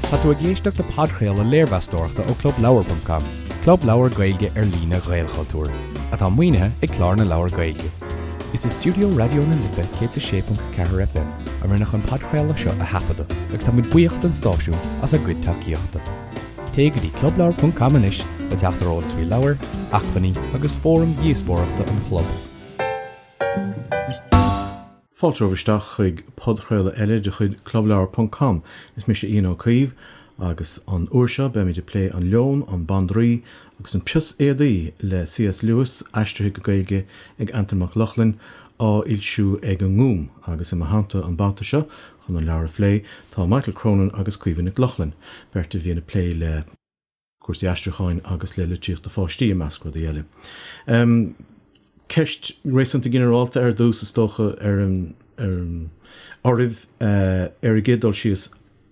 Tá tú ag éisteacht le podchraoladh léirmheastóireachta ó ClubLeabhar.com, club leabhar Gaeilge ar líne Ghaelchultúir, atá maoinithe ag Clár na Leabhar Gaeilge. Is i stiúideo Raidió na Life 106.4 FM a rinneadh an podchraoladh seo a thaifeadadh agus tá muid buíoch don stáisiún as a gcuid tacaíochta. Téigh go dtí clubleabhar.com anois le teacht ar eolas faoi leabhair, acmhainní agus fóraim dhíospóireachta an chlub. Fáilte romhaibh isteach chuig podchraoladh eile de chuid Clubleabhar ponc com. Is mise Ian Ó Caoimh agus an uair seo beimid ag plé An Leon, an Bandraoi agus an Pios Éadaí le C.S. Lewis, aistrithe go Gaeilge ag Antain Mac Lochlainn, á fhoilsiú ag an nGúm. Agus i mo theannta an babhta seo chun an leabhar a phlé tá Michael Cronin agus Caoimhe Nic Lochlainn, beirt a bhíonn ag plé le. cúrsaí aistriúcháin agus le litríocht do pháistí, i measc rudaí eile. Ceist réasúnta ginearálta ar dtús, is dócha, ar an oraibh ar an gcéad dul síos,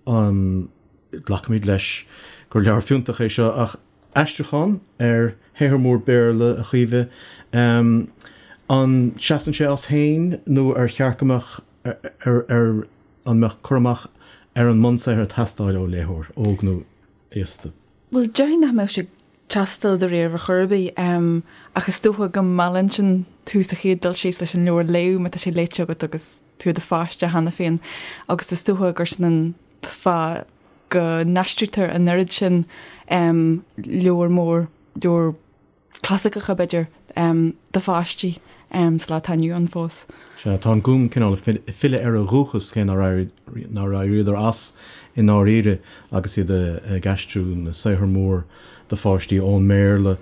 an nglacfaimid leis gur leabhar fiúntach é seo, ach aistriúchán ar shaothar mór Béarla, a Chaoimhe, an seasann sé as féin nó ar cheart go mbeadh ar an mbeadh cur amach ar an mbunsaothar ag teastáil ó léitheoir, óg nó aosta. Bhuel, déarfainn nach mbeadh sé ag teastáil dáiríre ar chor ar bith, ach is dócha go meallann sin tú sa chéad dul síos leis an leabhar a léamh má tá sé léite agat agus tú i do pháiste cheana féin agus is dócha gur sin an fáth go n-aistrítear an oiread sin leabhar mór, leabhar clasaiceacha, b'fhéidir, do pháistí sa lá atá inniu ann fós. Sea, tá an Gúm cineál ag filleadh ar a dhúchas, cé nár éiríodar as i ndáiríre agus iad ag aistriú na saothar mór do pháistí ón mBéarla.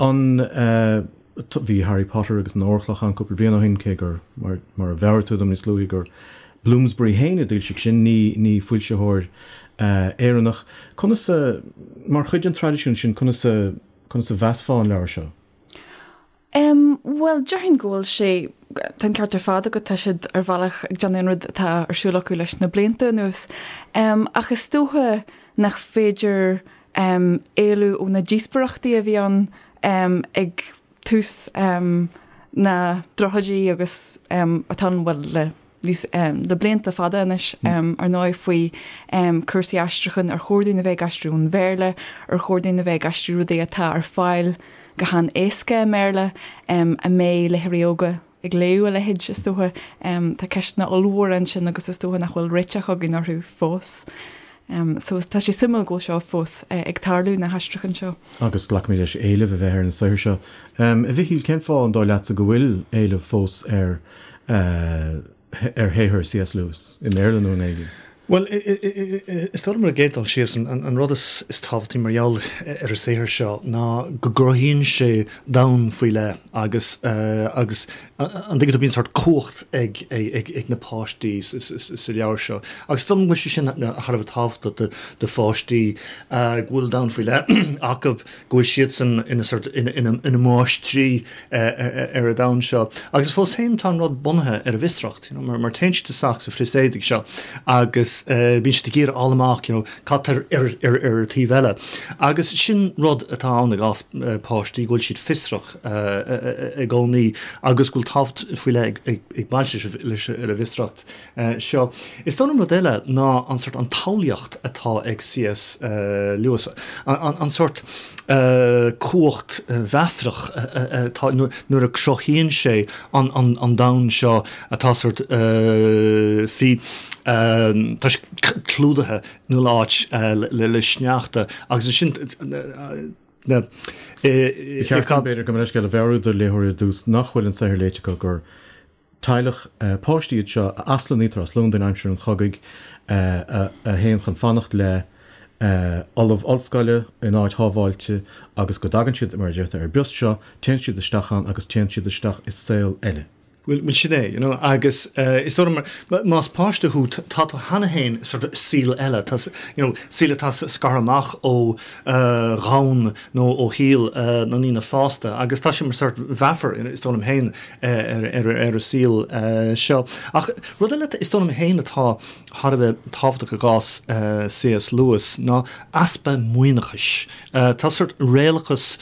An, bhí Harry Potter agus an Órchloch ann cúpla bliain ó shin, cé gur, mar a mheabhraigh tú dom níos luaithe, gur Bloomsbury féin a d'fhoilsigh sin, ní foilsitheoir Éireannach. Conas a, mar chuid den traidisiún sin, conas a, conas a mheasfá an leabhar seo? Em, bhuel, déarfainn go bhfuil sé, tá an ceart ar fad agat, tá siad ar bhealach ag déanamh an rud atá ar siúl acu leis na blianta anuas. Em, ach is dócha nach féidir, em, éalú ó na díospóireachtaí a bhí ann, em, ag tús, em, na dtríochaidí agus, em, atá ann, bhuel, le níos, le blianta fada anois, ar ndóigh, faoi cúrsaí aistriúcháin, ar chóir dúinn a bheith ag aistriú ón Bhéarla, ar chóir dúinn a bheith ag aistriú rudaí atá ar fáil go han-éasca i mBéarla, an mbeidh léitheoirí óga ag léamh a leithéid, is dócha. Tá ceisteanna ollmhóra ansin agus is dócha nach bhfuil réiteach againn orthu fós. So tá sé suimiúil go bhfuil seo fós ag tarlú, na haistriúcháin seo. Agus glacaimid leis éileamh a bheith ar na saothair seo. A Mhichíl, cén fáth, an dóigh leatsa, go bhfuil éileamh fós ar ar shaothar C.S. Lewis, i mBéarla nó i nGaeilge? Bhuel, is dóigh liom ar an gcéad dul síos, an rud is tábhachtaí mar gheall ar an saothar seo ná go gcruthaíonn sé domhan faoi leith agus agus an dtuigeann tú, bíonn sórt cumhacht ag ag na páistí sa leabhar seo. Agus is dóigh liom go bhfuil sé sin thar a bheith tábhachtach do pháistí, go bhfuil domhan faoi leith acu, go bhfuil siadsan ina sórt ina máistrí ar an domhan seo. Agus fós féin tá an rud bunaithe ar an bhfiosracht, you know, mar téann siad isteach sa phrios éadaigh seo agus bíonn siad ag iarraidh fháil amach, you know, cad tá ar ar ar an taobh eile. Agus sin rud atá ann i gcás páistí, go bhfuil siad fiosrach i gcónaí agus go bhfuil tábhacht faoi leith ag baint leis an bhfiosracht. seo. Is dóigh liom rud eile ná an sórt, an tsamhlaíocht atá ag C.S. Lewis, an sórt cumhacht mheafarach atá nuair a cruthaíonn sé an domhan seo atá sórt faoi, tá sé clúdaithe in chuile áit le sneachta agus ansin na. Ba cheart dom, b'fhéidir, gabh mo leithscéal, a mheabhrú do léitheoirí ar dtús nach bhfuil an saothar léite acu gur Teaghlach páistí iad seo a aslonnaítear as Londain aimsir an chogaidh, a théann chun fanacht le ollamh ollscoile in áit shábháilte agus go dtagann siad, mar a deirtear, ar an bprios seo, téann siad isteach ann agus téann siad isteach i saol eile. Bhuel, sin é, you know, agus is dóigh liom, más páiste thú, tá tú cheana féin i sort of saol eile, tá, you know, saol atá scartha amach ó dhomhan nó ó shaol na ndaoine fásta agus tá sé mar sort mheafar, is dóigh liom féin, ar an saol seo. Ach rud eile is dóigh liom féin atá thar a bheith tábhachtach i gcás C.S. Lewis ná easpa maoithneachais. Tá sórt réalachas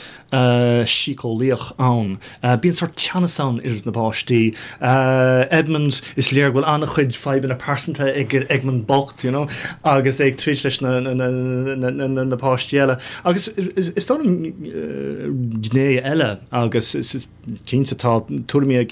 síceolaíoch ann. Bíonn sórt teannas ann idir na páistí. Lucy. Edmund, is léir go bhfuil an-chuid fadhbanna pearsanta ag Edmund bocht, you know, agus é ag troid leis na páistí eile. Agus is dóigh liom gné eile agus is cinnte tá tuairimí ag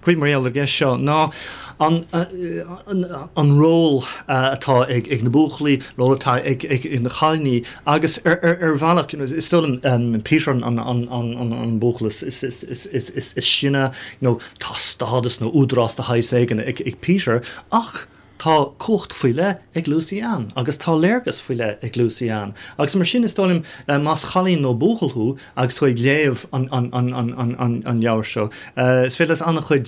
cuid mar gheall ar an gceist seo ná an ról atá ag na buachaillí, ról atá ag na cailíní agus ar bhealach is dóigh liom Peter an buachaill is sine, you know, tá stádas nó údarás de shaghas éigin ag Peter ach tá cumhacht faoi leith ag Lucy Ann agus tá léargas faoi leith ag Lucy Ann agus mar sin is dóigh liom más cailín nó buachaill thú agus tú ag léamh an leabhair seo is féidir leat an-chuid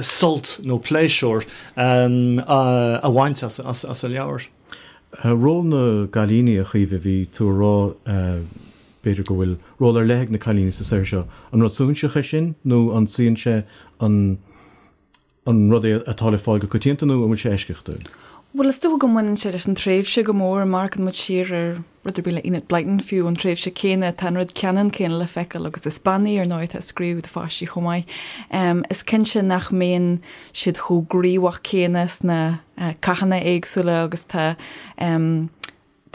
sult nó pléisiúr a bhaint as an leabhar. Ról na gcailíní, a Chaoimhe, bhí tú a rá b'fhéidir go bhfuil ról ar leith ag na cailíní sa saothar seo. An rud suaithinseach é sin nó an suíonn sé an An rud é atá le fáil go coitianta nó an bhfuil sé eisceachtúil? Bhuel, is dócha go mbaineann sé leis an tréimhse go mór. Má amharcann muid siar ar rud ar bith le Enid Blyton fiú, an tréimhse céanna, tá an rud ceannann céanna le feiceáil agus is bean í, ar ndóigh, atá ag scríobh do pháistí chomh maith. Is cinnte nach mbíonn siad chomh gníomhach céanna sna cathanna éagsúla agus tá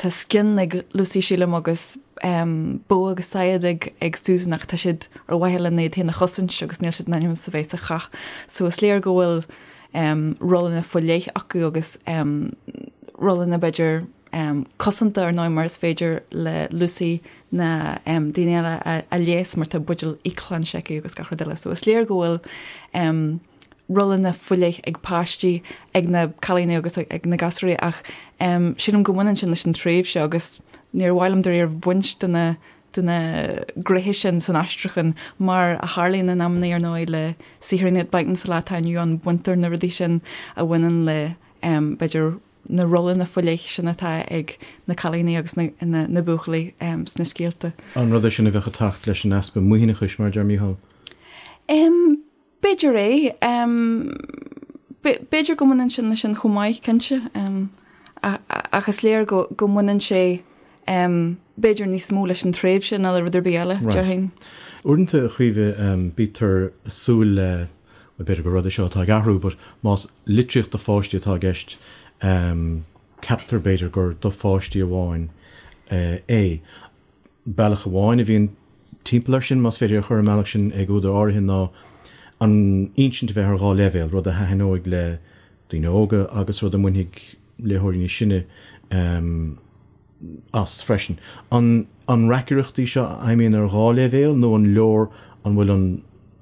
Tá scian ag Lucy, sílim, agus bogha agus saighead ag ag Susan ach tá siad ar mhaithe lena iad féin a chosaint agus níl siad in ainm is a bheith sa chath. So is léir go bhfuil rólanna faoi leith acu agus rólanna b'fhéidir cosanta ar ndóigh mar is féidir le Lucy na daoine eile a leigheas mar tá buidéal íocshláinte aici agus gach rud eile. So is léir go bhfuil rólanna faoi leith ag páistí, ag na cailíní agus ag na gasúirí ach sílim go mbaineann sin leis an tréimhse agus níor mhaith liom dáiríre baint de na de na gnéithe sin san aistriúchán mar a tharlaíonn in amannaí ar ndóigh le saothar Enid Blyton sa lá atá inniu ann, baintear na rudaí sin a bhaineann le b'fhéidir na rólanna faoi leith sin atá ag na cailíní agus na na buachaillí sna scéalta. An rud é sin a bheadh ag teacht leis an easpa maoithneachais mar a deir Mícheál? B'fhéidir é. B'fhéidir go mbaineann sin leis sin chomh maith, cinnte. Ach is léir go go mbaineann sé b'fhéidir níos mó leis an tréimhse ná le rud ar bith eile, déarfainn. Uaireanta, a Chaoimhe, bítear ag súil le, bhuel, b'fhéidir gur rud é seo atá ag athrú, but más litríocht do pháistí atá i gceist, ceaptar b'fhéidir gur do pháistí amháin é. Bealach amháin a bhíonn timpeall air sin, más féidir é a chur ar an mbealach sin ag údair áirithe, ná an insint a bheith ar dhá leibhéal, rud a thaitneoidh le daoine óga agus rud a mbainfidh léitheoirí níos sine as freisin. An an reacaireacht í seo a fheidhmíonn ar dhá leibhéal nó an leor an bhfuil an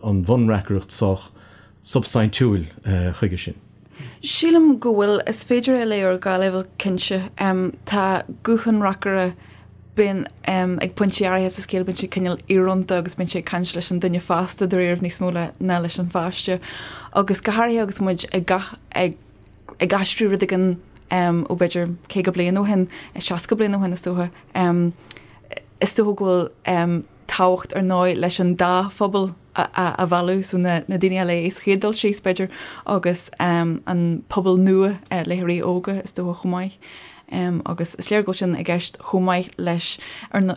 an bhunreacaireacht sách substaintiúil chuige sin? Sílim go bhfuil. Is féidir é a léamh ar dhá leibhéal cinnte. Tá guth an reacaire bíonn ag pointí áirithe sa scéal bíonn sé cineál íorónta agus bíonn sé ag caint leis an duine fásta dáiríre níos mó ná leis an pháiste. Agus go háirithe agus muid ag ag ag aistriú rud éigin ó b'fhéidir 50 bliain ó shin, 60 bliain ó shin is dócha, is dócha go bhfuil tábhacht ar ndóigh leis an dá phobal a mhealladh, so na daoine a léigh sa chéad dul síos b'fhéidir agus an pobal nua, léitheoirí óga is dócha chomh maith. Agus is léir go bhfuil sin i gceist chomh maith leis ar na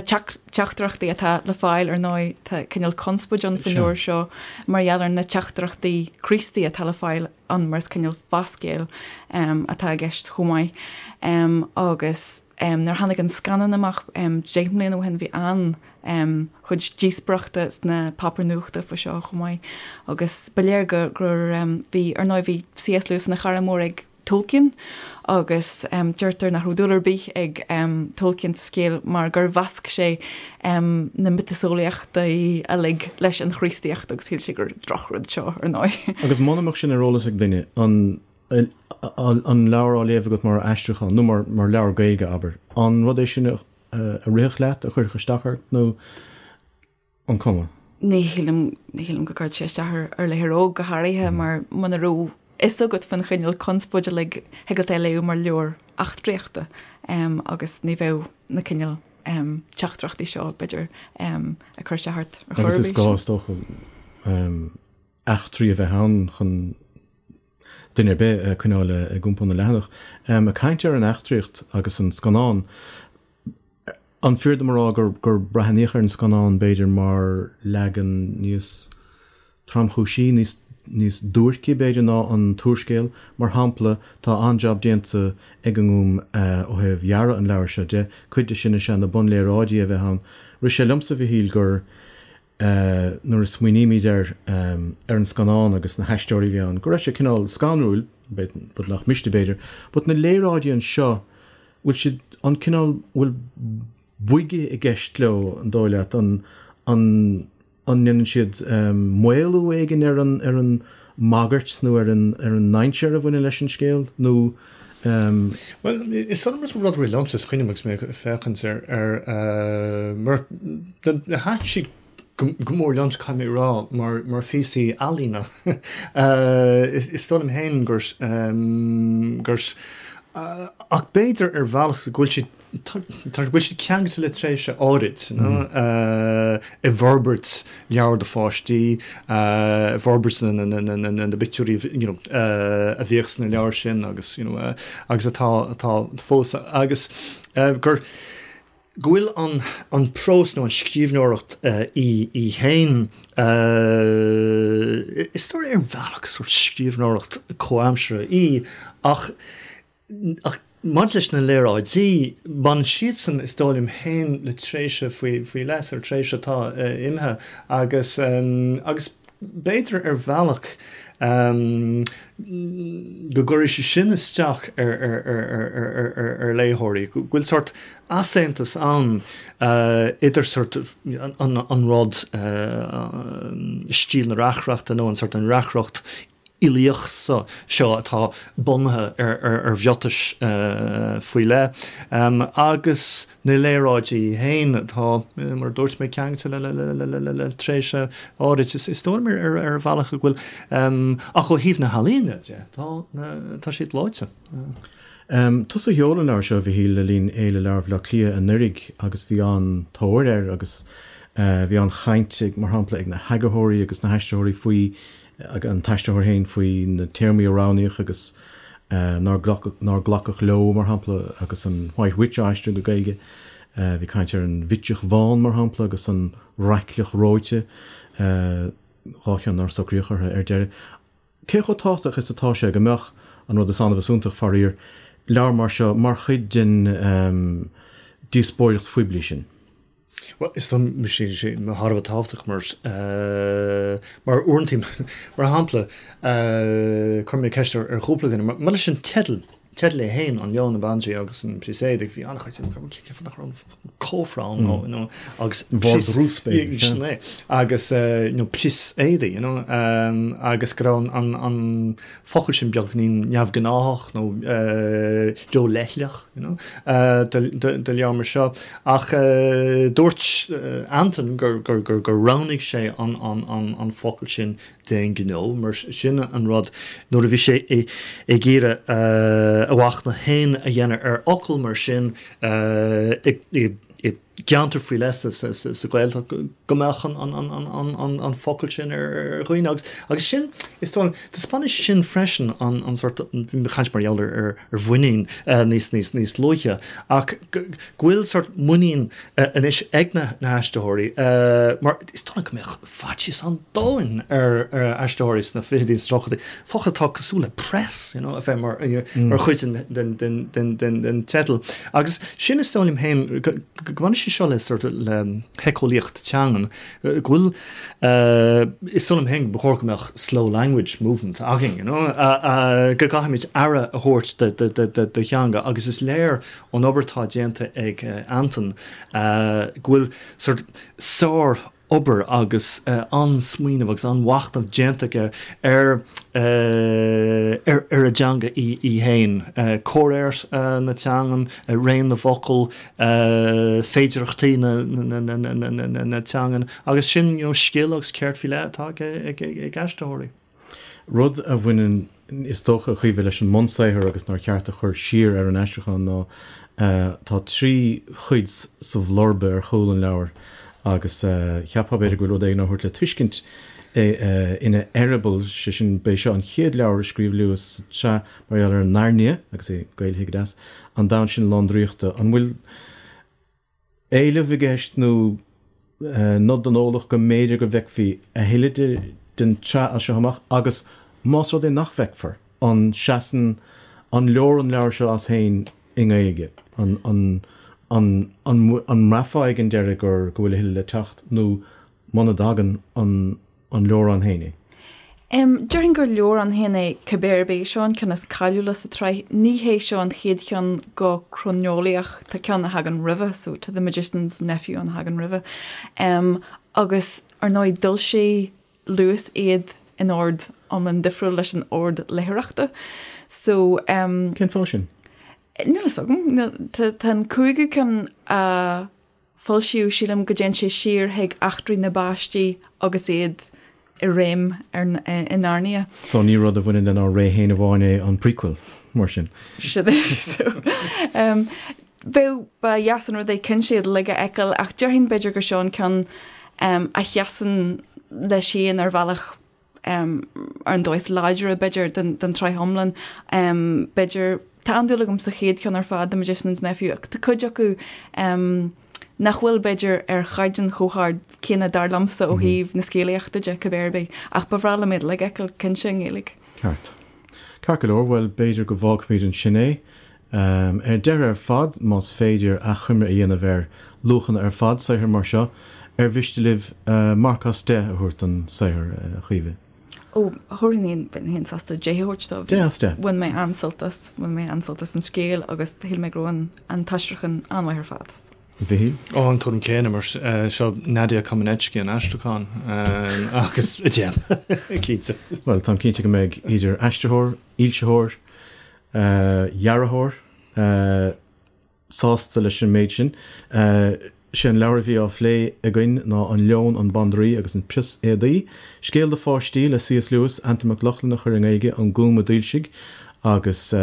teachtaireachtaí atá le fáil ar ndóigh tá cineál conspóid ann faoin leabhar seo mar gheall ar na teachtaireachtaí Críostaí atá le fáil ann mar is cineál fáthscéal atá i gceist chomh maith. Agus nuair a tháinig an scannán amach 10 mbliana ó shin bhí an chuid díospóireachta sna páipéir nuachta faoi seo chomh maith agus ba léir gur gur bhí ar ndóigh bhí C.S. Lewis ina chara mór ag Tolkien agus deirtear nach raibh dúil ar bith ag Tolkien sa scéal mar gur mheasc sé na miotaseolaíochtaí uilig leis an Chríostaíocht agus shíl sé gur drochrud seo ar ndóigh. Agus muna mbeadh sin ar eolas ag duine, an an leabhar á léamh agat mar aistriúchán nó mar mar leabhar Gaeilge, abair, an rud é sin a rithfeadh leat, a chuirfeadh isteach ort nó an cuma? Ní shílim, ní shílim go gcuirfeadh sé isteach ar ar léitheoir óg go háirithe mar muna raibh fhios agat faoin chineál conspóide uilig thig leat é a léamh mar leabhar eachtraíochta agus ní bheadh na cineál teachtaireachtaí seo b'fhéidir ag cur isteach ort ar chor ar bith. Agus is gá is dócha eachtraí a bheith ann chun duine ar bith a choinneáil ag iompó na leathanach. Ag caint ar an eachtraíocht agus an scannán, an fíor dom a rá gur gur breathnaíodh ar an scannán b'fhéidir mar leagan níos. tromchúisí, níos níos duairce b'fhéidir ná an t-úrscéal. Mar shampla, tá an-jab déanta ag an nGúm ó thaobh dhearadh an leabhair seo de. Cuid de sin is ea na bunléaráidí a bheith ann. Rith sé liomsa, a Mhichíl, gur nuair a smaoinímid ar ar an scannán agus na haisteoirí a bhí ann, go raibh sé cineál scanrúil, rud nach miste b'fhéidir, but na léaráidí anseo, bhfuil siad an cineál, bhfuil boige i gceist leo, an dóigh leat, an an an ndéanann siad maolú éigin ar an ar an mbagairt nó ar an ar an ndainséar a bhaineann leis an scéal nó Bhuel, is dóigh liom rud a rith liomsa is cuimhin liom agus mé ag féachaint ar ar mar thaitin siad go mór liomsa caithfidh mé a rá mar mar phíosaí ealaíne. Is dóigh liom féin gur gur ach b'fhéidir ar bhealach go bhfuil siad Tá go bhfuil siad ceangailte le tréimhse áirid i bhforbairt leabhar do pháistí, i bhforbairt na bpictiúirí a bhíodh sna leabhair sin agus agus atá atá fós agus gur go bhfuil an an prós nó an scríbhneoireacht í í féin is dóigh ar bhealach sórt scríbhneoireacht comhaimseartha í ach Ach maidir leis na léaráidí, baineann siadsan, is dóigh liom féin, le tréimhse faoi leith, sórt tréimhse atá imithe agus, agus b'fhéidir ar bhealach go gcuirfidh sé sin isteach ar léitheoirí, go bhfuil sórt easaontas ann idir sórt an rud, stíl na reacaireachta nó an sórt an reacaireacht uilíoch seo atá bunaithe ar mhiotais faoi leith, agus na léaráidí féin atá, mar a dúirt mé, ceangailte le tréimhse áirid. Is dóigh liom ar bhealach go bhfuil, ach ó thaobh na healaíne de, tá siad gleoite. Tusa a sheol an leabhar seo, a Mhichíl, le linn Fhéile Leabhar Bhaile Átha Cliath anuraidh agus bhí an-tóir air agus bhí an-chaint, mar shampla, ag na heagarthóirí agus na haistritheoirí faoi ag an t-aistritheoir féin faoi na téarmaí a roghnaíodh agus nár glacadh, nár glacadh leo, mar shampla, agus an White Witch á aistriú go Gaeilge. Bhí caint ar an Bhitseach Bhán, mar shampla, agus an Raicleach Reoite, dhá cheann nár socraíodh orthu ar deireadh. Cé chomh tábhachtach is atá sé go mbeadh, an rud is annamh is iontach, faraor, leabhar mar seo mar chuid den díospóireacht phoiblí sin? Bhuel, is dóigh liom sé sé thar a bheith tábhachtach mar mar uaireanta, mar shampla, chuir mé ceist ar chúpla duine, mar leis an teideal, teideal é féin, An Leon, an Bandraoi agus an Prios Éadaigh, bhí an-chuid cén fáth nach raibh an cófra ann nó, you know, agus Vardrús b'fhéidir. Sin é. Agus, you know, prios éadaigh, you know, agus go raibh an an focal sin beagáinín neamhghnáthach nó róleithleach, you know, do leabhar mar seo. Ach dúirt Antain gur roghnaigh sé an focal sin d'aon ghnó, mar sin an rud nuair a bhí sé ag iarraidh a mhachnamh féin a dhéanamh ar fhocal mar sin i gceantar faoi leith sa Ghaeltacht go mbeadh an focal sin ar dhaoine agus agus sin is dóigh liom taispeánann sé sin freisin an sórt bhí mé ag caint mar gheall ar ar mhuinín níos níos níos luaithe ach go bhfuil sórt muinín anois ag na haistritheoirí mar is dóigh liom go mbeadh faitíos an domhain ar aistritheoirí sna fichidí is tríochaidí focal atá cosúil le press, you know, a bheith mar mar chuid den den den den den teideal. Agus sin is dóigh liom féin go go mbaineann sé seo le sort of le héiceolaíocht teangan, go bhfuil is dóigh liom féin go ba chóir go mbeadh slow language movement againn, you know, go gcaithfimid aire a thabhairt do do do do do theanga agus is léir ón obair atá déanta ag Antain go bhfuil sort sár obair agus an-smaoineamh agus an-mhachnamh déanta aige ar ar an dteanga í féin, comhréir na teangan, raon na bhfocal, féidearthachtaí na teangan agus sin you know scil agus ceird faoi leith atá ag aistritheoirí. Rud a bhaineann, is dócha, a Chaoimhe, leis an mbunsaothar agus nár cheart a chur siar ar an aistriúchán ná tá trí chuid sa bhlurba ar chúl an leabhair agus cheapfá b'fhéidir go bhfuil rud éigin á thabhairt le tuiscint ina eireaball, sé sin, b'é seo an chéad leabhar a scríobh Lewis sa tsraith mar gheall ar Nairnia, agus é gaelaithe go deas, an domhan sin lán draíochta. An bhfuil. éileamh i gceist nó nod don eolach go mb'fhéidir go bhfeicfí a thuilleadh de. den tsraith as seo amach agus más rud é nach bhfeicfear, an seasann, an leor an leabhar seo as féin i nGaeilge? An, an, an, an, an mbraithfeá ag an deireadh gur, go bhfuil a thuilleadh le teacht nó muna dtagann, an, an leor ann féin é? Em, déarfainn gur leor ann féin é cibé ar bith. Seo an ceann is cáiliúla sa tsraith. Ní hé seo an chéad cheann go croineolaíoch, tá ceann a thagann roimhe, so tá The Magician's Nephew ann a thagann roimhe. Em, agus ar ndóigh d'fhoilsigh Lewis iad in ord iomlán difriúil leis an ord léitheoireachta. So, em. Cén fáth sin? Níl a fhios agam. Níl, tá, tá an cúigiú ceann a foilsíodh, sílim go dtéann sé siar chuig eachtraí na bpáistí agus iad i réim ar, i Narnia. So ní rud a bhaineann lenár ré féin amháin é an prequel, mar sin. Sin é. So, um, bheadh, ba dheas an rud é cinnte iad uilig a fheiceáil ach déarfainn b'fhéidir gur seo an ceann um, a sheasann leis féin ar bhealach um, ar an dóigh is láidre b'fhéidir den, den tsraith iomlán. Um, b'fhéidir, tá an-dúil agam sa chéad cheann ar fad, The Magician's Nephew, ach tá cuid acu um, nach bhfuil b'fhéidir ar chaighdeán chomh hard céanna dar liomsa ó thaobh na scéalaíochta de, cibé ar bith, ach ba bhreá liom iad uilig a fheiceáil cinnte i nGaeilge. Ceart. Ceart go leor, bhuel b'fhéidir go bhfágfaimid ansin é. Ar deireadh ar fad, más féidir achoimre a dhéanamh ar luachanna ar fad saothair mar seo, ar mhiste libh marc as 10 a thabhairt don saothar, a Chaoimhe? Ó, thabharfainn, bheinn féin sásta 10 a thabhairt dó. 10 as 10. Bhain mé an-sult as, bhain mé an-sult as an scéal agus shíl mé go raibh an, an t-aistriúchán an-mhaith ar fad. A Mhichíl? Ó, an tuairim céanna, mar seo Nadia Comaneci an aistriúchán agus 10, cinnte. Bhuel, táim cinnte go mbeidh idir aistritheoir, fhoilsitheoir, dhearthóir sásta leis an méid sin. Sé an leabhar a bhí á phlé againn ná An Leon, an Bandraoi agus an Prios Éadaí, scéal do pháistí le C.S. Lewis, Antain Mac Lochlainn a chuir i nGaeilge, An Gúm a d'fhoilsigh agus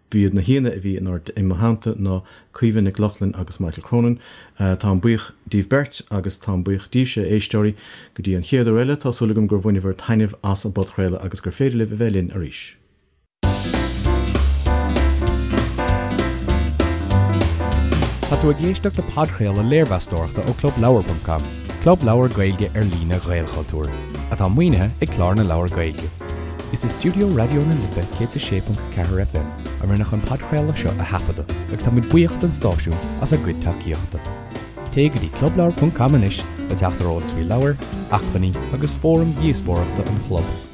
b'iad na haíonna a bhí i mo theannta ná Caoimhe Nic Lochlainn agus Michael Cronin. Táim buíoch díbh beirt agus táim buíoch díbhse, a éisteoirí. Go dtí an chéad uair eile, tá súil agam gur bhaineabhair taitneamh as an bpodchraoladh agus gur féidir libh a bheith linn arís. Tá tú ag éisteacht le podchraoladh léirmheastóireachta ó ClubLeabhar.com, club leabhar Gaeilge ar líne Ghaelchultúir, atá maoinithe ag Clár na Leabhar Gaeilge. Is i stiúideo Raidió na Life 106.4 FM a rinneadh an podchraoladh seo a thaifeadadh agus táimid buíoch don stáisiún as a gcuid tacaíochta. Téigh go dtí clubleabhar.com anois le teacht ar eolas faoi leabhair, acmhainní agus fóraim dhíospóireachta an chlub.